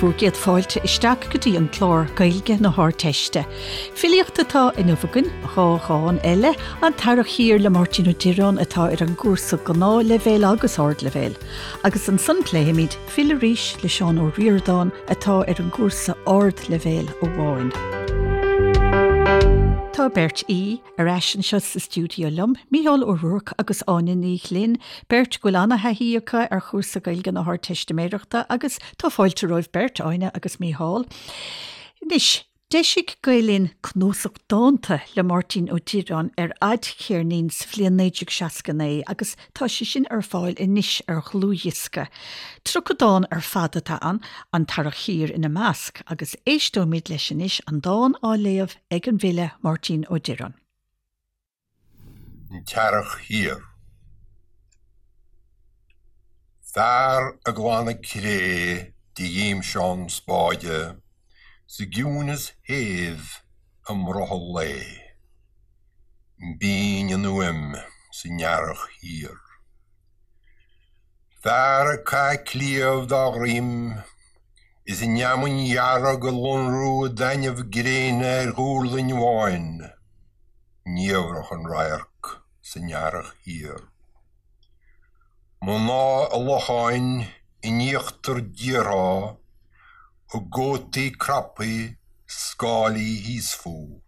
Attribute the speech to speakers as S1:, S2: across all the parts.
S1: Bhur gcéad fáilte isteach go dtí an clár Gaeilge na hArdteiste. Filíocht atá inniu againn, 2 dhán eile, An tEarrach Thiar le Máirtín Ó Direáin atá ar an gcúrsa Gnáthleibhéil agus Ardleibhéil. Agus ansan pléifimid Fill Arís le Seán Ó Ríordáin atá ar an gcúrsa Ardleibhéil amháin. Tá beirt aoi ar ais anseo sa stiúideo liom, Mícheál Ó Ruairc agus Áine Ní Ghlinn, beirt go bhfuil ana-thaithí acu ar chúrsa Gaeilge na hArdteistiméireachta agus tá fáilte romhaibh beirt, Áine agus Mícheál. Anois, d'eisigh Gael Linn cnuasach dánta le Máirtín Ó Direáin ar fhadcheirnín sa bhliain 1969 agus tá sé sin ar fáil anois ar dhlúthdhiosca. 30 dán ar fad atá ann, An tEarrach Thiar ina measc, agus éisteoimid leis anois, an dán á léamh ag an bhfile Máirtín Ó Direáin.
S2: An tEarrach Thiar. Fear ag glanadh cré de ghimseán spáide sa gciúnas shéimh i mbrothall lae. B'fhíng an fhuaim san earrach thiar. Fear ag caitheamh cliabh dá dhroim is an fheamainn dhearg ag lonrú i dtaitneamh gréine ar dhuirling bháin, niamhrach an radharc san earrach thiar. Mná i locháin in íochtar díortha a gcótaí craptha scáilí thíos fúthu,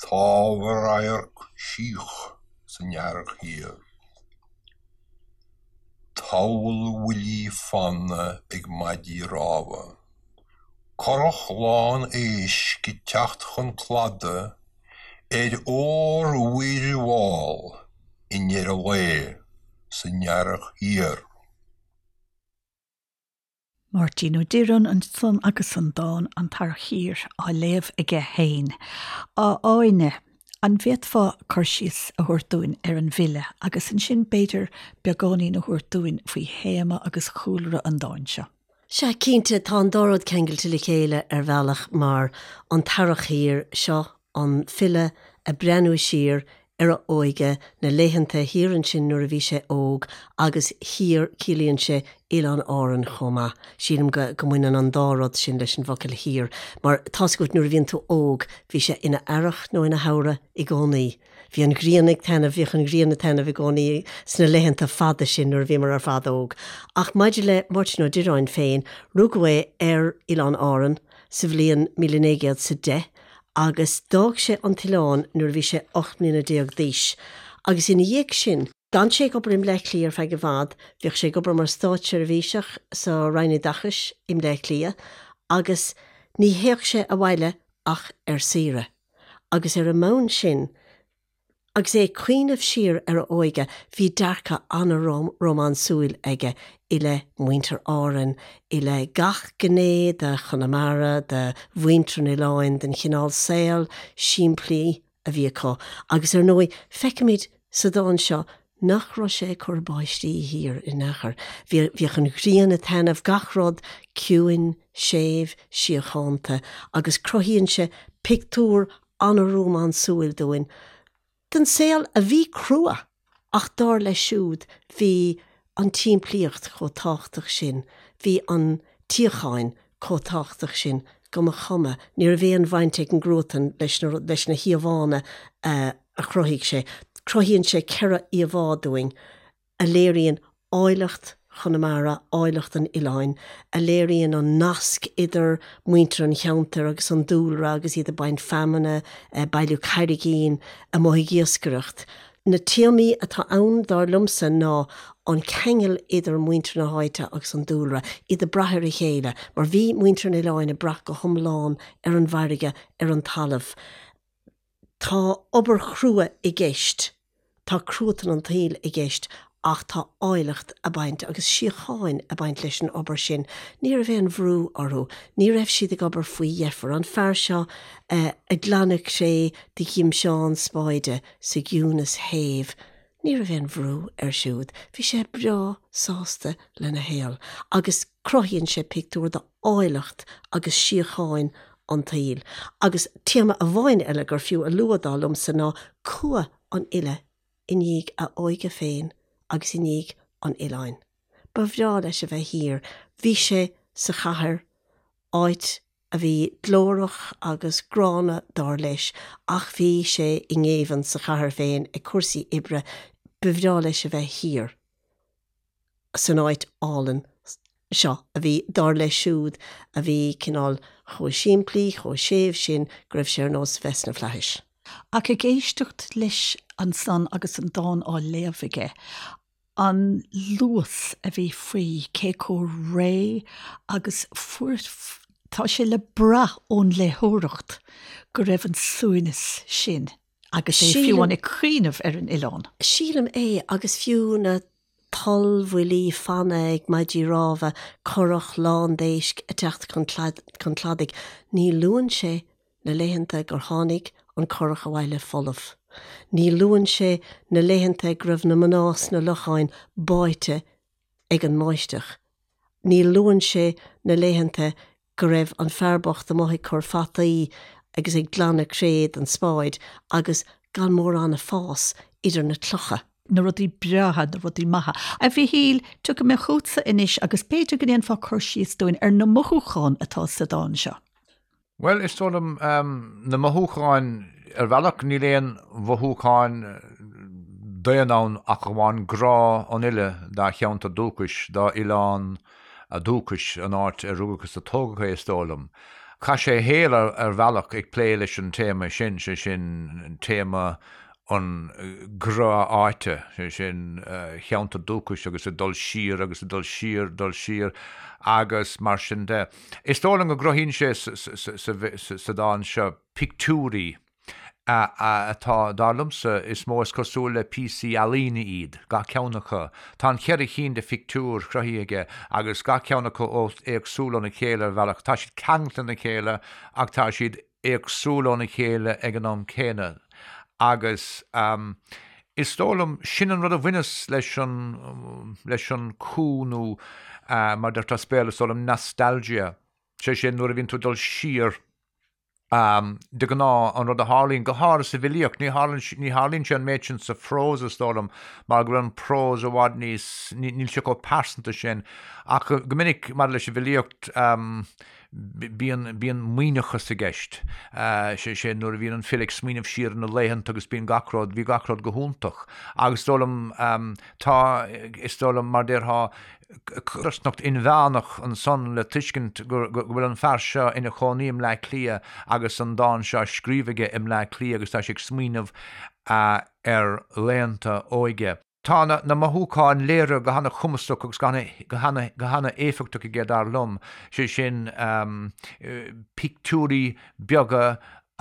S2: támh a radharc síoch san earrach thiar. Tabhall bhuillí fanna ag maidí rámha. Curach lán éisc ag teacht chun cladaigh ar ór-mhuir mhall i ndeireadh lae san earrach thiar.
S1: Máirtín Ó Direáin ansan agus an dán 'An tEarrach Thiar' á léamh aige féin. A Áine, an bhféadfá cur síos a thabhairt dúinn ar an bhfile agus ansin b'fhéidir beagáinín a thabhairt dúinn faoi théama agus chúlra an dáin seo?
S3: Sea, cinnte, tá an dá rud ceangailte le chéile ar bhealach mar an tEarrach Thiar seo an file ag breathnú siar ar a óige, na laethanta thiar ansin nuair a bhí sé óg agus thiar ciallaíonn sé Oileáin Árann chomh maith. Sílim go go mbaineann an dá rud sin leis an bhfocal thiar mar tá's agat nuair a bhíonn tú óg bhí sé ina earrach nó ina shamhradh i gcónaí. Bhí an ghrian ag taitneamh, bhíodh an ghrian ag taitneamh i gcónaí sna laethanta fada sin nuair a bhíomar ar fad óg. Ach maidir le Máirtín Ó Direáin féin, rugadh é ar Oileán Árann sa bhliain 1910 agus d'fhág sé an t-oileán nuair a bhí sé 18 mbliana d'aois agus ina dhiaidh sin, d'fhan sé ag obair i mBleá Cliath ar feadh i bhfad, bhíodh sé ag obair mar státseirbhíseach sa Roinn Oideachais i mBleá Cliath agus ní théadh sé abhaile ach ar saoire agus ar an mbonn sin, Agus é ag cuimhneamh siar ar a óige, bhí dearcadh an-rómánsúil aige i leith mhuintir Árann, i leith gach gné de Chonamara, de mhuintir an oileáin, den chineál saol simplí a bhí acu. Agus ar ndóigh, feicimid sa dán seo nach raibh sé ag cur báistí thiar in aon chor. Bhíodh an ghrian ag taitneamh, gach rud ciúin, séimh, síochánta, agus cruthaíonn sé pictiúr an-rómánsúil dúinn den saol a bhí crua ach dar leis siúd bhí an tsimplíocht chomh tábhachtach sin, bhí an tsíocháin chomh tábhachtach sin go mba chuma, ní raibh aon bhaint ag an gcruatan leis na leis na híomhánna a chruthaigh sé. Cruthaíonn sé 4 íomhá dúinn. a léiríonn áilleacht Chonamara, áilleacht an oileáin, a léiríonn an nasc idir muintir an cheantair agus an dúlra agus iad ag baint feamainne, ag bailiú carraigín, amuigh ag iascaireacht. Na téamaí atá ann, dar liomsa, ná an ceangal idir muintir na háite agus an dúlra, iad ag brath ar a chéile, mar bhí muintir an oileáin ag brath go hiomlán ar an bhfarraige, ar an talamh. Tá obair chrua i gceist, tá cruatan an tsaoil i gceist ach tá áilleacht ag baint agus síocháin ag baint leis an obair sin. Ní raibh aon bhrú orthu, ní raibh siad ag obair faoi dheifir. An fear seo ag glanadh cré de ghimseán spáide sa gciúnas shéimh, ní raibh aon bhrú air siúd. Bhí sé breá sásta lena shaol agus cruthaíonn sé pictiúr de áilleacht agus síocháin an tsaoil. Agus téama amháin eile gur fiú a lua dar liomsa ná cumha an fhile i ndiaidh a óige féin agus i ndiaidh an oileáin. Ba bhreá leis a bheith thiar. Bhí sé sa chathair. áit a bhí glórach agus gránna dar leis, ach bhí sé i ngéibheann sa chathair féin ag cúrsaí oibre, ba bhreá leis a bheith thiar san áit álainn seo a bhí, dar leis siúd, a bhí cineál chomh simplí, chomh séimh sin go raibh sé ar nós a bheith sna flaithis.
S1: Ach ag éisteacht leis ansan agus an dán á léamh aige, an luas a bhí faoi, cé chomh réidh agus fuair, tá sé le brath ón léitheoireacht go raibh an suaimhneas sin agus é fiú amháin ag cuimhneamh ar an oileán.
S3: Sílim é, agus fiú na tollbhuillí fanna ag maidí rámha, curach lán d'éisc ag teacht chun cladaigh, ní luann sé na laethanta gur tháinig an curach abhaile folamh. Ní luann sé na laethanta go raibh na mná sna locháin báite ag an mbáisteach. Ní luann sé na laethanta go raibh an fear bocht amuigh ag cur fataí agus ag glanadh cré den spáid agus gan mórán ag fás idir na clocha.
S1: na rudaí breátha, na rudaí maithe. A Mhichíl, tiocfaidh mé chugatsa anois agus b'fhéidir go ndéanfá cur síos dúinn ar na mothúcháin atá sa dán seo.
S4: Bhuel, is dóigh liom, na mothúcháin, ar bhealach, níl aon mhothúcháin daonna ann ach amháin grá an fhile dá cheantar dúchais, dá oileán dúchais, an áit ar rugadh agus a tógadh é, is dóigh liom. Chaith sé a shaol ar bhealach ag plé leis an téama sin, sé sin téama an grá áite, sé sin, cheantar dúchais agus ag dul siar agus ag dul siar, dul siar agus mar sin de. Is dóigh liom go gcruthaíonn sé sa dán seo pictiúirí atá, dar liomsa, is mó is cosúil le píosaí ealaíne iad, gach ceann acu. Tá an cheithre chinn de phictiúir cruthaithe aige agus gach ceann acu éagsúil óna chéile ar bhealach. Tá siad ceangailte lena chéile ach tá siad éagsúil óna chéile ag an am céanna agus is dóigh liom, sin an rud a bhaineas leis an, leis an cú nó mar a deirtear as Béarla is dóigh liom nostalgia, sé sin nuair a bhíonn tú ag dul siar de ghnáth an rud a tharlaíonn, go háirithe sa bhfilíocht, ní tharlaíonn, ní tharlaíonn sé an méid sin sa phrós is dóigh liom mar go bhfuil an prós i bhfad níos, níl sé chomh pearsanta sin ach go minic maidir leis an bhfilíocht, Bíonn, bíonn maoithneachas i gceist, sé sin, nuair a bhíonn an file ag smaoineamh siar ar na laethanta agus bíonn gach rud, bhí gach rud go hiontach. Agus is dóigh liom, tá, is dóigh liom, mar déarfá, codarsnacht inmheánach ansan le tuiscint go, go bhfuil an fear seo ina chónaí i mBleá Cliath agus an dán seo á scríobh aige i mBleá Cliath agus tá sé ag smaoineamh ar laethanta óige. Tá na mothúcháin léirithe go hana-chumasach agus go hana-éifeachtach aige, dar liom, sé sin, pictiúirí beaga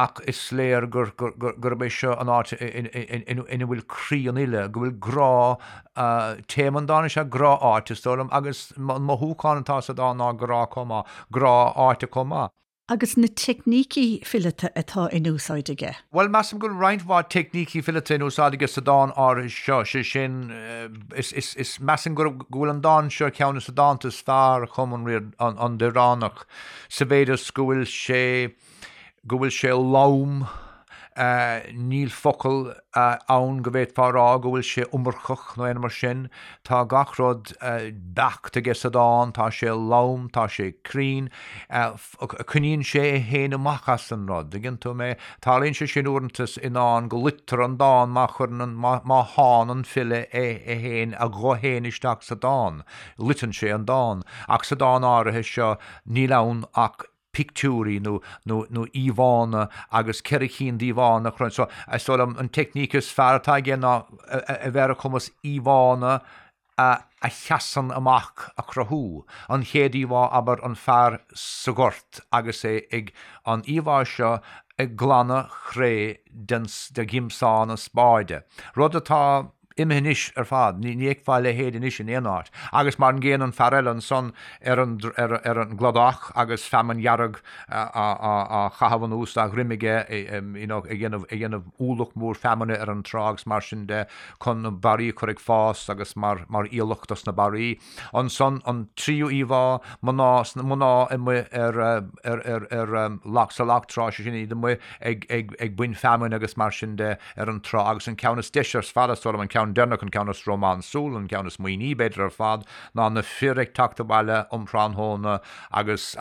S4: ach is léir gurb é seo an áit ina bhfuil croí an fhile, go bhfuil grá, téama an dáin is ea grá áite, is dóigh liom, agus an mothúchán atá sa dán ná grá chomh maith, grá áite chomh maith.
S1: Agus na teicnící fileata atá in úsáid aige.
S4: Bhuel, measaim go bhfuil roinnt mhaith teicnící fileata in úsáid aige sa dán áirithe seo, sé sin, is, is, is, measaim go, go bhfuil an dán seo ar cheann de na dánta is fearr a chum an, an Direánach, sa mhéid is go bhfuil sé, go bhfuil sé lom, níl focal ann go bhféadfá a rá go bhfuil sé iomarcach nó aon mar sin. Tá gach rud beacht aige sa dán, tá sé lom, tá sé cruinn, coinníonn sé é féin amach as an rud, dtuigeann tú mé? Tarlaíonn sé sin uaireanta i ndán go loitear an dán má chuireann an, má shánn an file é féin, a ghuth féin isteach sa dán, loiteann sé an dán. Ach sa dán áirithe seo níl ann ach pictiúirí nó nó nó íomhánna agus 4 chinn d'íomhánna a chruthú. So, is dóigh liom an teicníc is fearr atá aige ná a bheith ar a chumas íomhánna a a sheasann amach a chruthú. An chéad íomhá, abair, an fear sa ghort agus é ag an íomhá seo ag glanadh chré den de ghimseán na spáide. Rud atá imithe anois ar fad, ní fheicfeá a leithéid anois in aon áit. Agus mar an gcéanna an fear eile ansan ar an ar an gcladach agus feamainn dhearg á chaitheamh anuas dá dhroim aige, you know, ag déanamh ag déanamh ualach mór feamainne ar an trá agus mar sin de chun na barraí a chur ag fás agus mar mar aoileach dos na barraí. Ansan an tríú íomhá, mná mná amuigh ar ar ar ar loch sa loch trá, sé sin iad amuigh ag ag ag baint feamainn agus mar sin de ar an trá agus an ceann is deise ar fad is dóigh liom an ceann. ceann deireanach, an ceann is rómánsúla, an ceann is maoithní b'fhéidir ar fad, ná na fir ag teacht abhaile um thráthnóna agus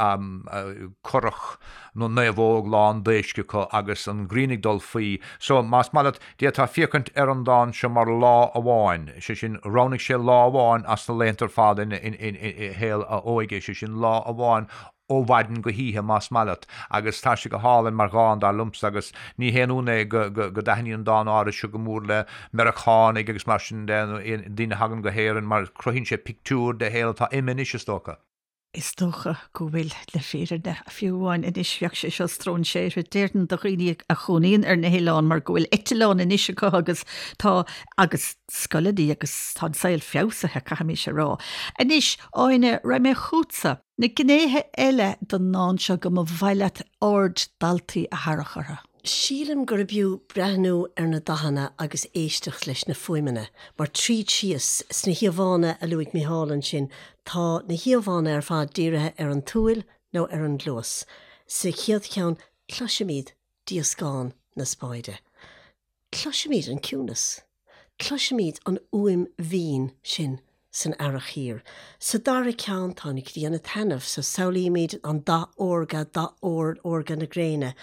S4: curach nó naomhóg lán d'éisc acu agus an ghrian ag dul faoi. So, más maith leat, d'fhéadfá féachaint ar an dán seo mar lá amháin, sé sin, roghnaigh sé lá amháin as na laethanta ar fad ina shaol a óige, sé sin, lá amháin ó mhaidin go hoíche, más maith leat, agus tá sé go hálainn mar dhán, dar liomsa, agus ní haon ionadh é go dtaitníonn an dán áirithe seo go mór le Meiriceánaigh agus mar sin de, nó daoine a thagann go hÉirinn, mar cruthaíonn sé pictiúr de shaol atá imithe anois, is dócha.
S1: Is dócha go bhfuil, le fírinne, fiú amháin anois, bheadh sé seo stróinséartha, déarfainn, do dhaoine a chónaíonn ar na hoileáin mar go bhfuil eitleán anois acu agus tá, agus scoileanna agus tá an saol feabhsaithe, caithfimís a rá. Anois, Áine, raghaidh mé chugatsa. Na gnéithe eile den ndán seo go mba mhaith leat aird daltaí a tharrac orthu.
S3: Sílim gurb fhiú breathnú ar na dathanna agus éisteacht leis na fuaimeanna, mar tríd síos, sna híomhánna a luaigh Micheál ansin, tá na híomhánna ar fad dírithe ar an tsúil nó ar an gcluas. Sa chéad cheann, cloisimid díoscán na spáide. Cloisimid an ciúnas. Cloisimid an fhuaim mhín sin san earrach thiar. Sa dara ceann tá an ghrian ag taitneamh, so samhlaímid an dath órga, dath ór órga na gréine.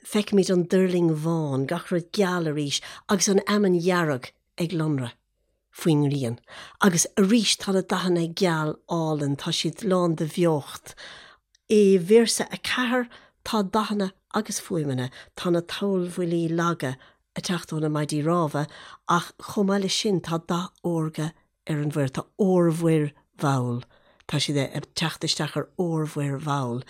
S3: Feicimid an duirling bhán, gach rud geal arís, agus an fheamainn dhearg ag lonradh. faoin ngrian. Agus arís tá na dathanna geal álainn, tá siad lán de bheocht. I véarsa 4 tá dathanna agus fuaimeanna, tá na tollbhuillí laga ag teacht ó na maidí rámha ach chomh maith leis sin tá dath órga ar an mhuir, tá órmhuir mhall, tá siad ag teacht isteach ar órmhuir mhall.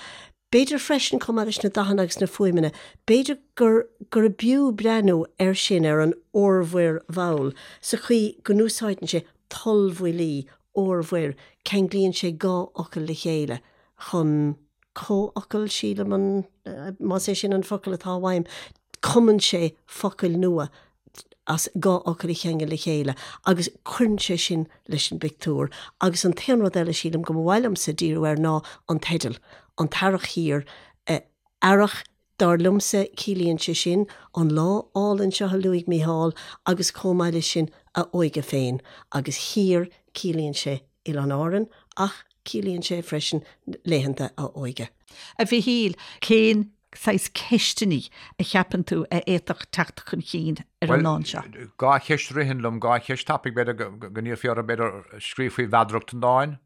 S3: B'fhéidir freisin, chomh maith leis na dathanna agus na fuaimeanna, b'fhéidir gur gurb fhiú breathnú air sin, ar an órmhuir mhall, sa chaoi go n-úsáideann sé tollbhuillí, órmhuir, ceanglaíonn sé dhá fhocal le chéile chun comhfhocal, sílim an, más é sin an focal atá uaim, cumann sé focail nua as dhá fhocal a cheangal le chéile agus cuireann sé sin leis an bpictiúr. Agus an t-aon rud eile, sílim, go mba mhaith liomsa díriú air ná an teideal, An tEarrach Thiar. Earrach, dar liomsa, ciallaíonn sé sin an lá álainn seo a luaigh Mícheál agus chomh maith leis sin a óige féin. Agus thiar, ciallaíonn sé Oileáin Árann ach ciallaíonn sé freisin laethanta a óige.
S1: A Mhichíl, cén saghas ceisteanna a cheapann tú a fhéadfadh teacht chun cinn ar an ndán seo?
S4: Bhuel, dhá cheist a ritheann liom, dhá cheist tapaidh, b'fhéidir go n-iarrfaí orthu, b'fhéidir, scríobh faoi mheadaracht an dáin,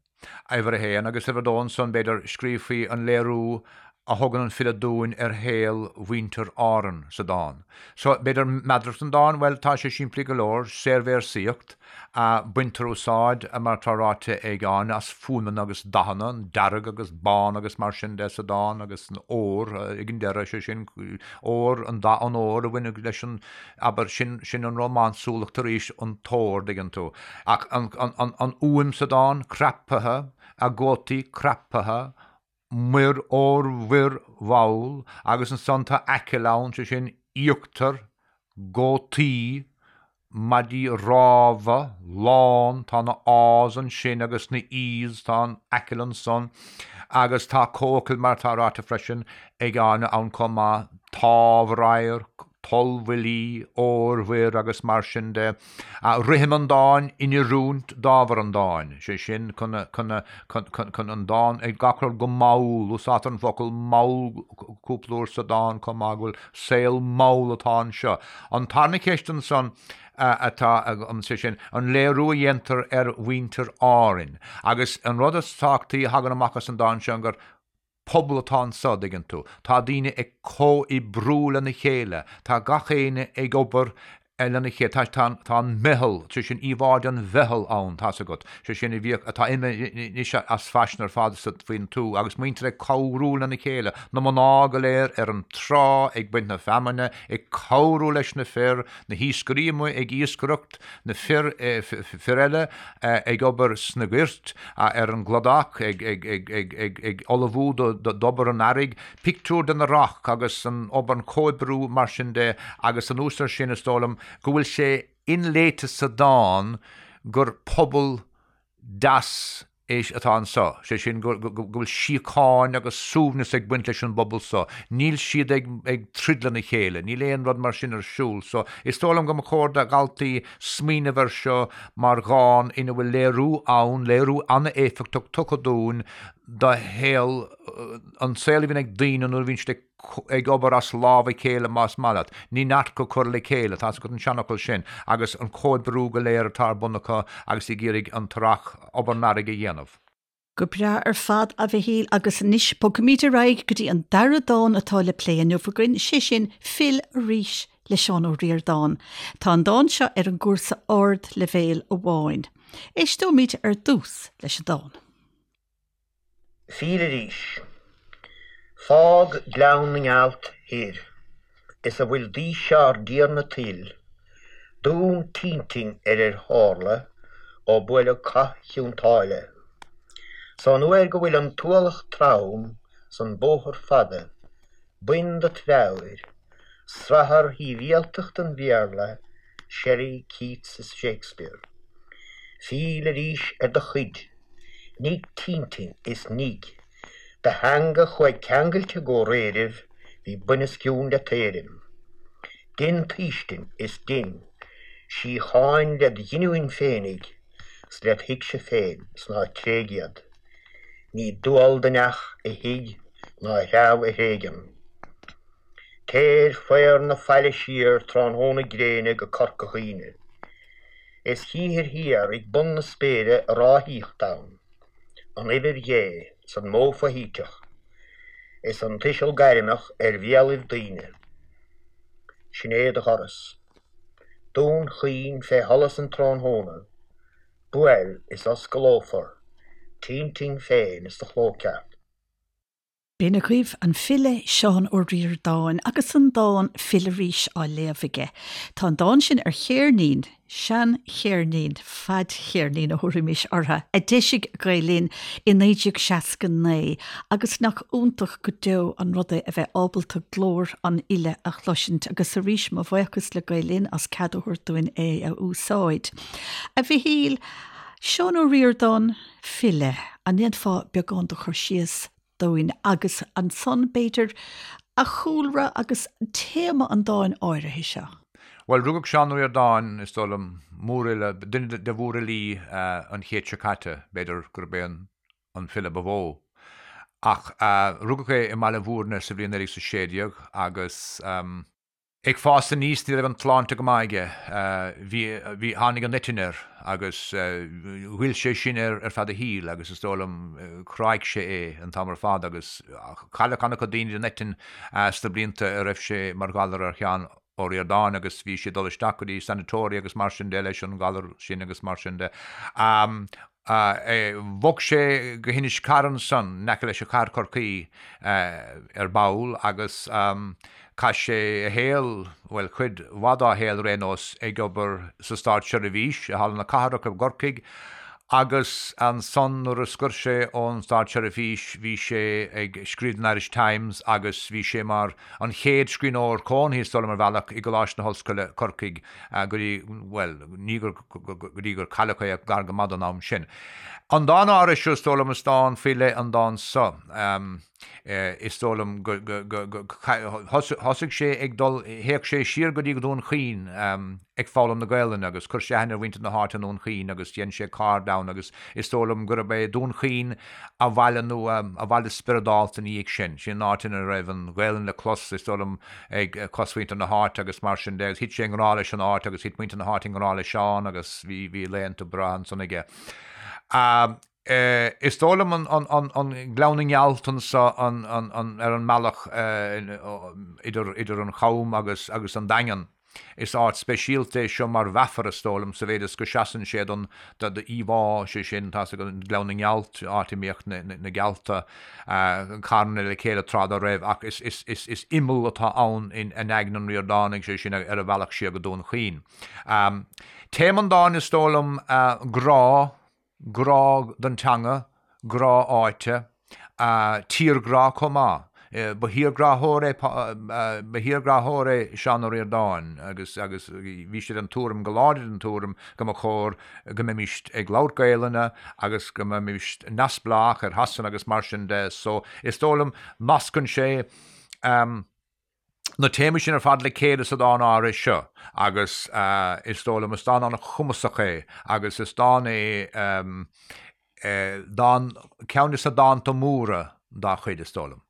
S4: uimhir a haon, agus uimhir a dó ansan, b'fhéidir, scríobh faoi an léiriú a thugann an file dúinn ar shaol mhuintir Árann sa dán. So, b'fhéidir, meadaracht an dáin, bhuel, tá sé simplí go leor, saorvéarsaíocht, Baintear úsáid, mar atá ráite ag Áine, as fuaimeanna agus dathanna, an dearg agus bán agus mar sin de sa dán agus an ór ag an deireadh, sé sin, ór, an dath an óir a bhaineann leis an, abair, sin, sin an rómánsúlacht arís, an t-ór, dtuigeann tú. Ach an, an, an, an fhuaim sa dán, craptha, a gcótaí craptha, muir órmhuir mhall, agus ansan tá aiceall ann, sé sin, íochtar, gcótaí, maidí rámha, lán, tá na A's ansin agus na E's, tá an aiceall ansan, agus tá comhfhocal mar atá ráite freisin ag Áine ann chomh maith, támhradharc, tollbhuillí, órmhuir agus mar sin de. Rithim an dáin in oiriúint d'ábhar an dáin, sé sin, chun an dán, ag gach rud go mall, úsáidtear an focal mall cúpla uair sa dán chomh maith, go bhfuil saol mall atá anseo. An tarna ceist ansan atá agam, sé sin, an léiriú a dhéantar ar mhuintir Árainn. Agus an rud is tábhachtaí a thagann amach as an dán seo gur pobal atá anso, dtuigeann tú. Tá daoine ag comhoibriú lena chéile, tá gach éinne ag obair lena chéile, tá, tá, tá an meitheal, sé sin íomhá den mheitheal ann, tá's agat, sé sin a bhíodh, atá imithe anois as faisean ar fad sa, faoin tuath, agus muintir ag cabhrú lena chéile, na mná go léir ar an trá ag baint na feamainne, ag cabhrú leis na fir, na hiascairí amuigh ag iascaireacht, na fir, fir eile ag obair sna goirt, ar an gcladach, ag ullmhú d'obair an earraigh, pictiúr den earrach agus an obair, an comhoibriú mar sin de agus anuas air sin is dóigh liom go bhfuil sé inléite sa dán gur pobal deas é. é atá anso, sé sin go bhfuil síocháin agus suaimhneas ag baint leis an bpobal so, níl siad ag ag troid lena chéile, níl aon rud mar sin ar siúl. So, is dóigh liom go mba chóir do dhaltaí smaoineamh air seo mar dhán ina bhfuil léiriú ann, léiriú an-éifeachtach tugtha dúinn do shaol, an saol a bhíonn ag daoine nuair a bhíonn siad ag ag obair as lámh a chéile más maith leat. Ní neart go cur le chéile, tá's agat an seanfhocal sin, agus an comhoibriú go léir atá ar bun acu agus ag iarraidh an t-earrach, obair an earraigh a dhéanamh.
S1: Go breá ar fad, a Mhichíl, agus anois bogfaimid ar aghaidh go dtí an dara dán atá le plé inniu againn, sé sin Fill Arís le Seán Ó Ríordáin. Tá an dán seo ar an gcúrsa Ardleibhéil amháin. Éisteoimid ar dtús leis an dán.
S5: Fill arís. Fág Gleann na nGealt thoir is a bhfuil d'aois ár dTiarna tuil, Dún t'intinn ar ar tharla ó buaileadh cath Chionn tSáile. 'S ón uair go bhfuil an t-ualach trom 's an bóthar fada, bain dot mheabhair, srathar shibhialtacht an Bhéarla, Shelley, Keats is Shakespeare. Fill arís ar do chuid. Nigh t'intinn is nigh do theanga chuaigh ceangailte gcomhréiribh bhí buinoscionn le t'éirim. Dein t'fhaoistin is dein síocháin led ghiniúin féinig 's led thuigse féin 's ná tréig iad. Ní dual do neach a thigh ná a threabh a thréigean. Téir faobhar na faille siar tráthnóna gréine go Corca Dhuibhne. Is chíthir thiar ag bun na spéire a ráthaíocht ann, an uimhir Dhé 's an modh foshuiteach, is an tuiseal gairmeach ar bhéalaibh daoine. Sin é do dhoras. Dún Chaoin fé sholas an tráthnóna, buail is osclófar t'intinn féin is do chló ceart.
S1: B'in agaibh an file Seán Ó Ríordáin agus an dán Fill Arís á léamh aige. Tá an dán sin ar cheirnín, sean-cheirnín, fadcheirnín a thabharfaimis orthu, a d'eisigh Gael Linn i 1969 agus nach iontach go deo an rud é a bheith ábalta glór an fhile a chloisint agus arís mo bhuíochas le Gael Linn as cead a thabhairt dúinn é a úsáid. A Mhichíl, Seán Ó Ríordáin, file, an ndéanfá beagán de chur síos dúinn agus ansan, b'fhéidir, a chúlra agus téama an dáin áirithe seo.
S4: Bhuel, rugadh Seán Ó Ríordáin, is dóigh liom, mórfhile, duine de mhórfhilí an chéid seo caite, b'fhéidir gurb é an file ba mhó. Ach rugadh é i mBaile Bhúirne sa bhliain 1916 agus. Ag fás aníos ní raibh an tsláinte go maith aige. Bhí, bhí, tháinig an eitinn air agus ghoill sé sin air ar feadh a shaoil agus is dóigh liom chráigh sé é an t-am ar fad agus cailleadh an-chuid daoine den eitinn sna blianta a raibh sé mar ghalar ar Sheán Ó Ríordáin agus bhí sé ag dul isteach go dtí sanatoria agus mar sin de leis an ghalar sin agus mar sin de. Bhog sé go hInis Carr ansan, in aice leis an chathair Chorcaí, ar ball agus chaith sé a shaol, bhuel, cuid mhaith dá shaol ar aon nós, ag obair sa státseirbhís i Halla na Cathrach i gCorcaigh agus ansan nuair a scoir sé ón státseirbhís bhí sé ag scríobh don Irish Times agus bhí sé mar an chéad scríbhneoir cónaithe, is dóigh liom, ar bhealach, i gColáiste na hOllscoile, Corcaigh go dtí, bhuel, ní gur, go dtí gur cailleadh é gar go maith don am sin. An dán áirithe seo, is dóigh liom, is dán faoi leith an dán seo. Is dóigh liom go, go, go, thosaigh sé ag dul, théadh sé siar go dtí Dún Chaoin ag foghlaim na Gaelainne agus chuir sé aithne ar mhuintir na háite i nDún Chaoin agus dhein sé cairde ann agus is dóigh liom gurb é Dún Chaoin a bhaile nó a bhaile spioradálta ina dhiaidh sin. Sin an áit ina raibh an Ghaelainn le clos, is dóigh liom, ag cosmhuintir na háite agus mar sin de agus thit sé i ngrá leis an áit agus thit muintir na háite i ngrá le Seán agus bhí bhí laethanta breátha ansan aige. Is dóigh liom an Gleann na nGealt anso ar an mbealach idir idir an Cham agus agus an Daingean. Is áit speisialta é seo mar mheafar, is dóigh liom, sa mhéid is go seasann sé don íomhá, sé sin, tá's agat, Gleann na nGealt, áit a mbíodh na gealta carnaithe le chéile tráth dá raibh, ach is imeall atá ann in aigne an Ríordánaigh, sé sin, ar a bhealach siar go Dún Chaoin. Téama an dáin, is dóigh liom, grá, grá don teanga, grá áite, tírghrá chomh maith. Ba thírghráthóir é, ba thírghráthóir é Seán Ó Ríordáin agus agus bhí sé den tuairim, go láidir den tuairim, go mba chóir go mbeimis ag labhairt Gaelainne agus go mbeimis neamhspleách ar Shasana agus mar sin de. So is dóigh liom nascann sé na téamaí sin ar fad le chéile sa dán áirithe seo agus is dóigh liom is dán an-chumasach é agus is dán é dán, ceann de na dánta móra dá chuid is dóigh liom.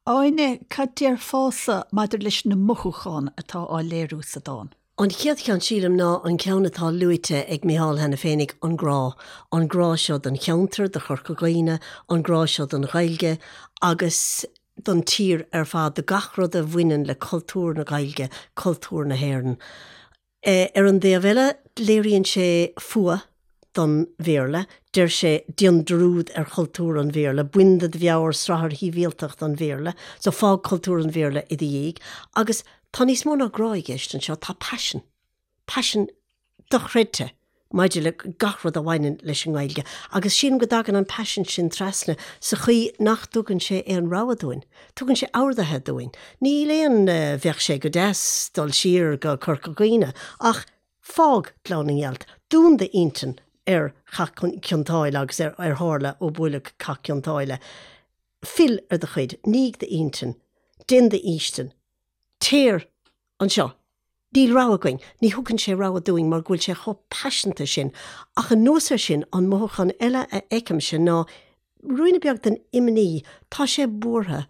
S1: Áine, cad déarfása maidir leis na mothúcháin atá á léiriú sa dán?
S3: An chéad cheann, sílim, ná an ceann atá luaite ag Micheál cheana féinig, an grá. An grá seo don cheantar, do Chorca Dhuibhne, an grá seo don Ghaeilge agus don tír ar fad, do gach rud a bhaineann le cultúr na Gaeilge, cultúr na hÉireann. Ar an dtaobh eile, léiríonn sé fuath don Bhéarla, deir sé, déan dearúd ar chultúr an Bhéarla, bain de do mheabhair srathair shibhialtacht an Bhéarla, so fág cultúr an Bhéarla i do dhiaidh. Agus tá níos mó ná grá i gceist anseo, tá paisean. Paisean dochreidte maidir le gach rud a bhaineann leis an nGaeilge agus sílim go dtagann an paisean sin trasna sa chaoi nach dtugann sé aon rogha dúinn. Tugann sé orduithe dúinn. Níl aon bheadh sé go deas dul siar go Corca Dhuibhne ach fág Gleann na nGealt, dún d'intinn ar Chath Cionn tSáile agus ar ar tharla ó buaileadh Cath Cionn tSáile. Fill ar do chuid, nígh d'intinn, déan d'fhaoistin, Téir anseo. Níl rogha againn. Ní thugann sé rogha dúinn mar go bhfuil sé chomh paiseanta sin. Ach anuas air sin, an mothúchán eile a fheicimse ná ruainne beag den imní. Tá sé buartha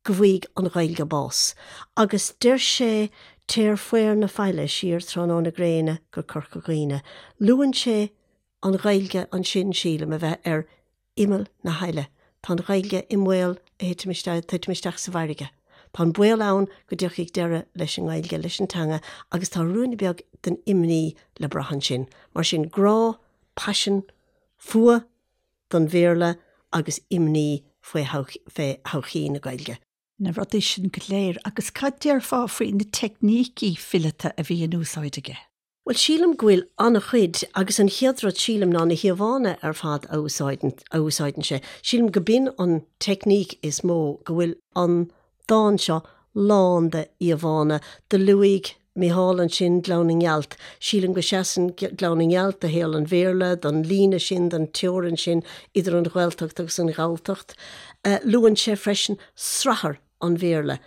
S3: go bhfaighidh an Ghaeilge bás. Agus deir sé Téir faobhar na faille siar tráthnóna gréine go Corca Dhuibhne. Luann sé an Ghaeilge ansin, sílim, a bheith ar imeall na haille. Tá an Ghaeilge i mbaol a thitim isteach, titim isteach sa bhfarraige. Tá an baol ann go dtiocfaidh deireadh leis an nGaeilge, leis an teanga agus tá ruainne beag den imní le brath ansin. Mar sin, grá, paisean, fuath don Bhéarla agus imní faoi thodhchaí na Gaeilge.
S1: Na rudaí sin go léir. Agus cad déarfá faoi na teicnící fileata a bhí in úsáid aige?
S3: Bhuel, sílim go bhfuil an-chuid, agus an chéad rud sílim ná na híomhánna ar fad a úsáideann, a úsáideann sé. Sílim go b'in an teicníc is mó, go bhfuil an dán seo lán de íomhánna. Do luaigh Micheál ansin Gleann na nGealt. Sílim go seasann Gleann na nGealt do shaol an Bhéarla, don líne sin, don teorainn sin idir an Ghaeltacht agus an Ghalltacht. Luann sé freisin srathar an Bhéarla.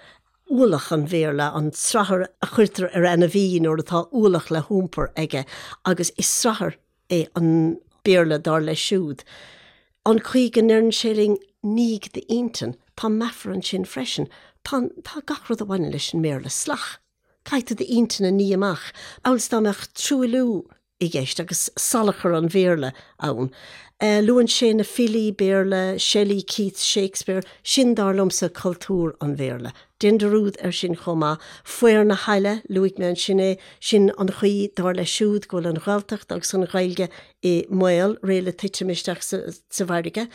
S3: ualach an Bhéarla, an srathar a chuirtear ar ainmhí nuair atá ualach le hiompar aige, agus is srathar é an Béarla dar leis siúd. An chaoi go ndeireann sé linn 'nígh d'intinn', tá meafar ansin freisin. Tá, tá gach rud a bhaineann leis an mBéarla salach. Caithfidh tú d'intinn a ní amach, amhail is dá mbeadh truailliú i gceist agus salachar an Bhéarla ann. Luann sé na filí Béarla, Shelley, Keats, Shakespeare, sin dar liomsa cultúr an Bhéarla. Déan dearúd air sin chomh maith. Faobhar na haille, luaigh mé ansin é, sin an chaoi, dar leis siúd, go bhfuil an Ghaeltacht agus an Ghaeilge i mbaol, réidh le titim isteach sa bhfarraige.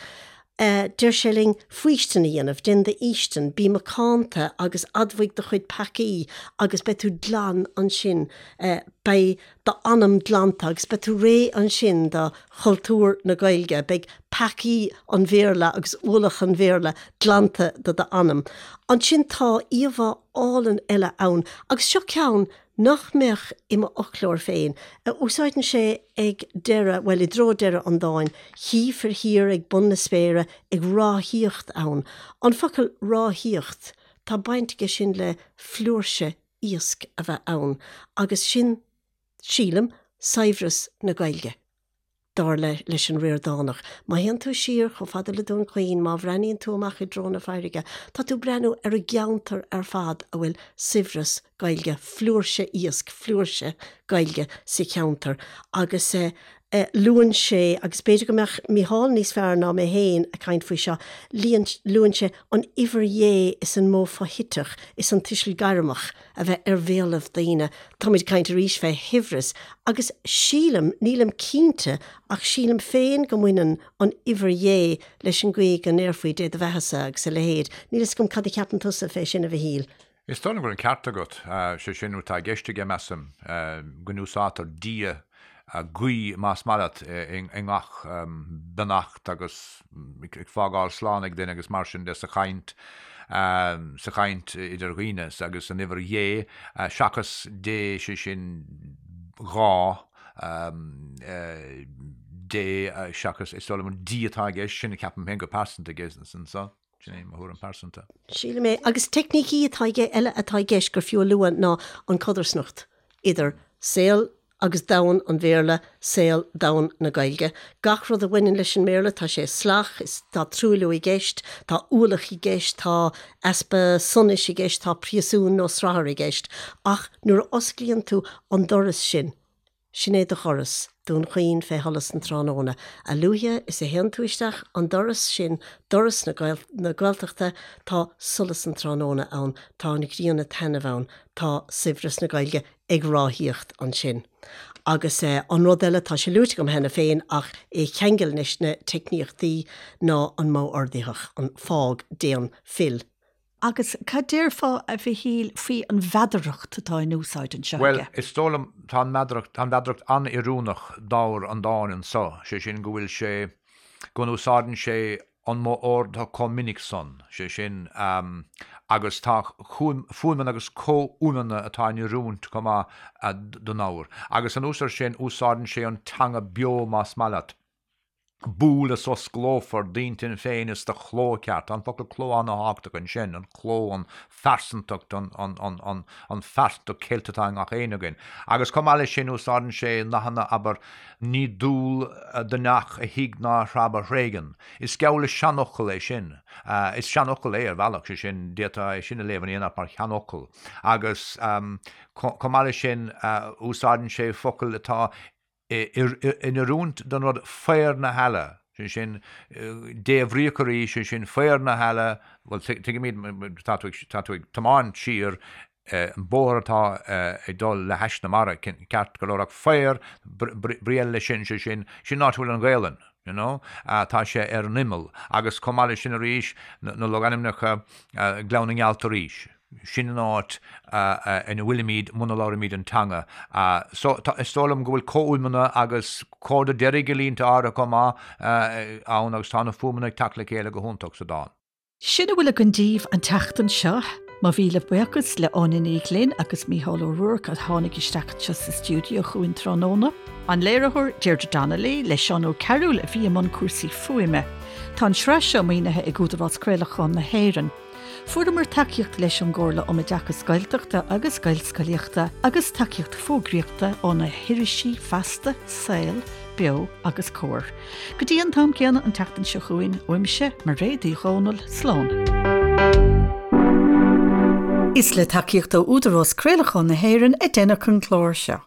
S3: Deir sé linn faoistin a dhéanamh, déan d'fhaoistin, bí macánta agus admhaigh do chuid peacaí agus beidh tú glan ansin, beidh d'anam glanta agus beidh tú réidh ansin do chultúr na Gaeilge, beidh peacaí an Bhéarla agus ualach an Bhéarla glanta de d'anam. Ansin tá íomhá álainn eile ann agus seo ceann nach mbeadh i m'fhoclóir féin, a úsáideann sé ag deireadh, bhuel, i dtreo deireadh an dáin, Chífir thiar ag bun na spéire ag ráthaíocht ann. An focal ráthaíocht, tá baint aige sin le flúirse iasc a bheith ann, agus sin, sílim, saibhreas na Gaeilge. Dar leis an Ríordánach, má théann tú siar chomh fada le Dún Chaoin, má bhreathnaíonn tú amach i dtreo na farraige, tá tú ag breathnú ar an gceantar ar fad a bhfuil saibhreas Gaeilge, flúirse iasc, flúirse Gaeilge sa cheantar. Agus luann sé, agus b'fhéidir go mbeadh Mícheál níos fearr ná mé féin ag caint faoi seo, luann sé an uimhir Dhé is an modh foshuiteach is an tuiseal gairmeach. a bheith ar bhéalaibh daoine. Táimid ag caint arís fé shaibhreas agus sílim, nílim cinnte, ach sílim féin go mbaineann an uimhir Dhé leis an gcaoi go ndéarfaí Dé do bheathasa agus a leithéid. Níl fhios agam cad a cheapann tusa fé sin, a Mhichíl.
S4: Is dóigh liom go bhfuil an ceart agat. Sé sin atá i gceist aige, measaim, go n-úsáidtear Dia, guí, más maith leat, i ngach beannacht agus ag fágáil slán ag duine agus mar sin de sa chaint. sa chaint idir dhaoine agus an uimhir dhé seachas dé, sé sin dhá dé seachas is dóigh liom an D atá i gceist, sin a ceapaim féin go pearsanta aige anso. Sin é mo thuairim
S3: pearsanta. Sílim é. Agus teicnící atá aige eile atá i gceist gur fiú a lua ná an codarsnacht idir saol agus domhan an Bhéarla, saol, domhan na Gaeilge. Gach rud a bhaineann leis an mBéarla, tá sé salach, is tá truailliú i gceist, tá ualach i gceist, tá easpa sonais i gceist, tá príosún nó srathar i gceist. Ach nuair a osclaíonn tú an doras sin, Sin é do dhoras, Dún Chaoin fé sholas an tráthnóna. A luaithe is a théann tú isteach an doras sin, doras na Gaeltachta, tá solas an tráthnóna ann, tá an ghrian ag taitneamh ann, tá saibhreas na Gaeilge ag ráthaíocht ansin. Agus an rud eile, tá sé luaite agam cheana féin ach é a cheangal leis na teicníochtaí, ná an modh ordaitheach, an fág, déan, fill.
S1: Agus cad déarfá, a Mhichíl, faoi an mheadaracht atá in úsáid anseo
S4: aige? Bhuel, is dóigh liom, tá an mheadaracht, tá an mheadaracht an-oiriúnach d'ábhar an dáin anso, sé sin go bhfuil sé, go n-úsáideann sé an modh ordaithe chomh minic san, sé sin, agus tá fuaimeanna agus comhfhuaimeanna atá in oiriúint chomh maith don ábhar. Agus anuas air sin, úsáideann sé an teanga beo más maith leat. Buail is osclófar d'intinn féin is do chló ceart. Tá an focal cló an-thábhachtach ansin, an cló, an phearsantacht, an, an, an, an, an phearsantacht cheilte atá i ngach éinne againn. Agus chomh maith leis sin úsáideann sé nathanna, abair, ní dual do neach a thig ná a threab a thréigean. Is geall le seanfhocal é sin. Is seanfhocal é ar bhealach, sé sin, d'fhéadfá é sin a léamh in aon áit mar sheanfhocal. Agus chomh maith leis sin úsáideann sé focail atá in oiriúint don rud faobhar na heala, sé sin, débhríoch arís, sé sin, faobhar na heala, bhuel, tuigimid, tá tú ag, tá tú ag tiomáint siar an bóthar atá ag dul le hais na mara, ceart go leor, ach faobhar, brí eile leis sin, sé sin, sin an áit a bhfuil an Ghaelainn, you know, tá sé ar an imeall, agus chomh maith leis sin arís, na logainmneacha, Gleann na nGealt arís. Sin an áit ina bhfuilimid muna labhraímid an teanga. So, is dóigh liom go bhfuil comhfhuaimeanna agus comhardadh deiridh i línte áirithe chomh maith ann agus tá na fuaimeanna ag teacht le chéile go hiontach sa dán.
S1: Sin a bhfuil againn daoibh an tseachtain seo. Mo mhíle buíochas le Áine Ní Ghlinn agus Mícheál Ó Ruairc a tháinig isteach anseo sa stiúideo chugainn tráthnóna. An léiritheoir, Deirdre Donnelly, le Seán Ó Cearúil a bhí i mbun cúrsaí fuaime. Tá an tsraith seo maoinithe ag Údarás Craolacháin na hÉireann. Fuaireamar tacaíocht leis ón gComhairle um Oideachas Gaeltachta agus Gaelscolaíochta agus tacaíocht fógraíochta ó na hirisí Feasta, Saol, Beo agus Comhar. Go dtí an t-am céanna an tseachtain seo chugainn, uaimse, Mairéad Uí Dhomhnaill, slán. Is le tacaíocht ó Údarás Craolacháin na hÉireann a deineadh an clár seo.